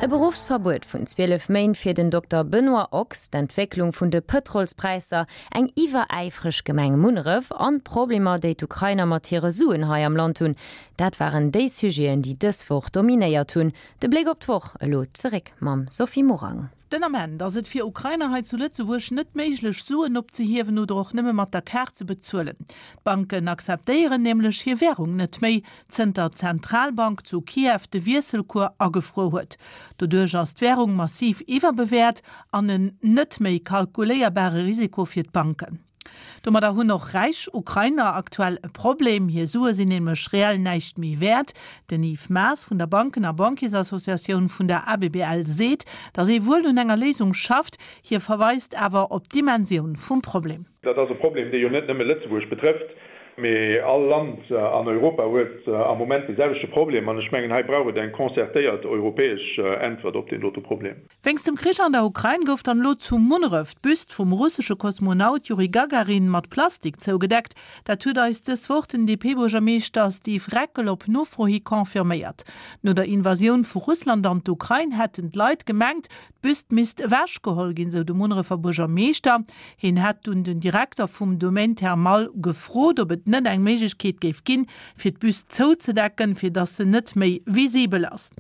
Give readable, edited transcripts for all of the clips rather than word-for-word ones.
E Beruffsverbuet vun 12 Méint fir den Dokter Benoît Ochs, d'Entwécklung vun de Pëtrolspräisser, eng iwweräifreg Gemeng Munneref an d'Problemer, déi d'Ukrainer mat hire Suen hei am Land hunn, dat waren déi Sujeten, déi dës Woch dominéiert hunn. De Bléck op d'Woch elo zeréck mam Sophie Morang. Den Ament ass et fir Ukrainer hei zu Lëtzebuerg net méiglech, Suen opzehiewen oder och nëmme mat der Kaart ze bezuelen. D'Banken akzeptéieren nämlech hir Wärung net méi, zënter d'Zentralbank zu Kiew de Wiesselcours agefruer huet. Doduerch ass d'Wärung massiv iwwerbewäert an en net méi kalkuléierbare Risiko fir d'Banken. Domadder hunn och räich Ukrainer aktuell e Problem, hir Sue sinn nämlech reell näischt méi wäert. Den Yves Maas vun der Banken a Banquiersassociatioun vun der ABBL seet, datt ee wuel un enger Léisung schafft. Hie verweist awer op d'Dimensioun vum Problem. Dat ass e Problem, dee jo net nëmme Lëtzebuerg betrëfft, mee all Land an Europa huet am Moment dee selwechte Problem. An ech mengen, hei brauch et eng concertéiert europäesch Äntwert op deen dote Problem. Wéinst dem Krich an der Ukrain gouf dann elo zu Munneref d'Büst vum russesche Kosmonaut Juri Gagarin mat Plastik zougedeckt. Dat huet eis dës Woch den DP-Buergermeeschter Steve Reckel op Nofro hi confirméiert. No der Invasioun vu Russland an d'Ukrain hätten d'Leit gemengt, d'Büst misst ewechgeholl ginn, sou de Munnerefer Buergermeeschter. Hien hätt dunn den Direkter vum Domaine Thermal gefrot, ob et net eng Méiglechkeet géif ginn, fir d'Büst zouzedecken, fir dass se net méi visibel ass.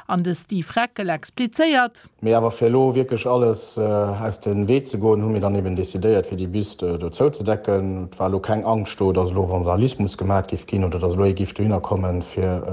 An de Steve Reckel explizéiert. Mee awer fir elo wierklech alles aus dem Wee ze goen, hu mir dann eben decidéiert, fir déi Büst do zouzedecken. Et war elo keng Angscht do, dass elo Vandalismus gemat géif ginn oder dass elo ee géif dohinner kommen, fir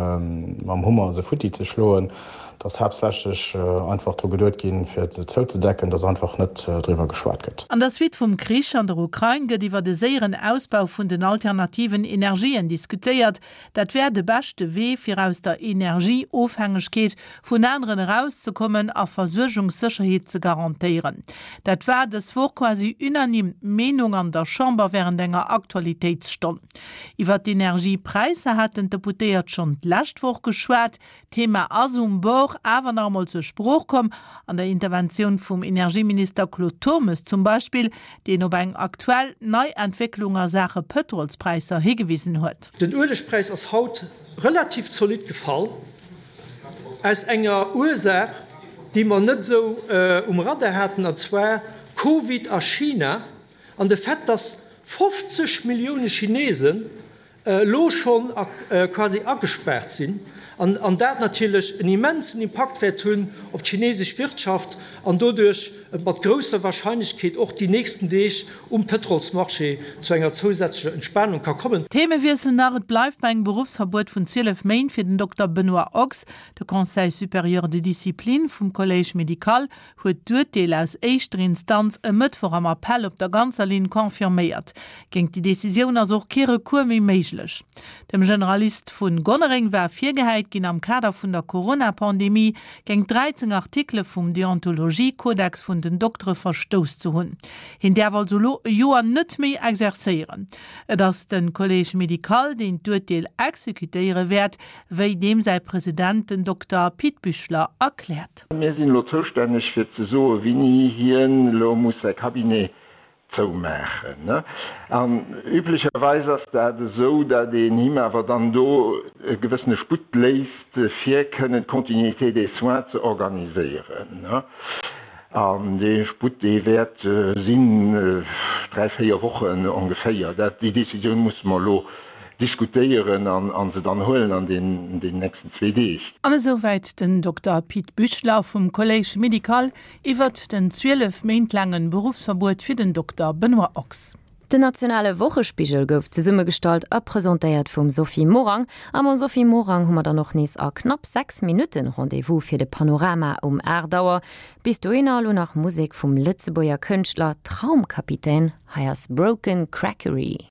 mam Hummer se futti ze schloen. Et ass haaptsächlech einfach dru geduet ginn, fir se zouzedecken, dass einfach net driwwer geschwat gëtt. An der Suite vum Krich an der Ukrain gëtt iwwert e séieren Ausbau vun den alternativen Energien diskutéiert. Dat wär de beschte Wee, fir aus der Energieofhängegkeet vun aneren erauszekommen a Versuergungssécherheet ze garantéieren. Dat war dës Woch quasi unanime d'Meenung an der Chamber wärend enger Aktualitéitsstonn. Iwwert d'Energiepräisser haten d'Deputéiert schonn d'lescht Woch geschwat. D'Thema ass um Bord awer nach emol zur Sprooch komm, an der Interventioun vum Energieminister Claude Turmes zum Beispill, deen op eng aktuell nei Entwécklung a Saache Pëtrolspräisser higewisen huet. Den Uelegpräis ass haut relativ zolidd gefall, aus enger Ursaach, déi mer net esou um Radar haten, an zwar Covid a China an de Fait, dass 50 Millioune Chinesen elo schonn quasi agespaart sinn an dat natierlech en immensen Impakt wäert hunn op d'chinesesch Wirtschaft an doduerch et mat grousser Wahrscheinlechkeet och déi nächsten Deeg um Pëtrolsmarché zu enger zousätzlecher Entspanung ka kommen. Themewiessel nach, Et bleift bei engem Beruffsverbuet vun 12 Méint fir den Dokter Benoît Ochs. De Conseil supérieur de discipline vum Collège médical huet d'Urteel aus éischter Instanz e Mëttwoch am Appell op der ganzer Linn confirméiert. Géint déi Decisioun ass och kee Recours méi méiglech. Dem Generalist vu Gonnereng war virgehäit ginn, am Kader vun der Corona-Pandemie géint 13 Artikele vum Deontologie-Kodex vun den Doktere verstouss ze hunn. Hien däerf also elo e Joer net méi exerzéieren. Et ass de Collège médical, deen d'Urteel exekutéiere wäert, wéi deem säi President, den Dokter Pit Büchler, erkläert. Mir sinn elo zoustänneg fir ze soen, wéini hien elo muss säi Cabinet zoumaachen. An üblecherweis ass dat esou, datt een him awer dann do e gewëssene Sputt léisst, fir kënnen d'Continuité des soins ze organiséieren. An dee Sputt, dee wäert sinn dräi, véier Wochen ongeféier. Dat, déi Décisioun musse mer elo diskutéieren an se dann huelen an den nächsten zwee Deeg. An esouwäit den Dokter Pit Büchler vum Collège médical iwwert den 12 Méint laange Beruffsverbuet fir den Dokter Benoît Ochs. Den nationale Wochespigel gouf zesummegestallt a presentéiert vum Sophie Morang. A mam Sophie Morang hu mer dann och nees a knapp 6 Minutten Rendez-vous fir de Panorama um 8 Auer. Bis dohinner elo nach Musek vum Lëtzebuerger Kënschtler Traumkapitän. Hei ass Broken Crackery.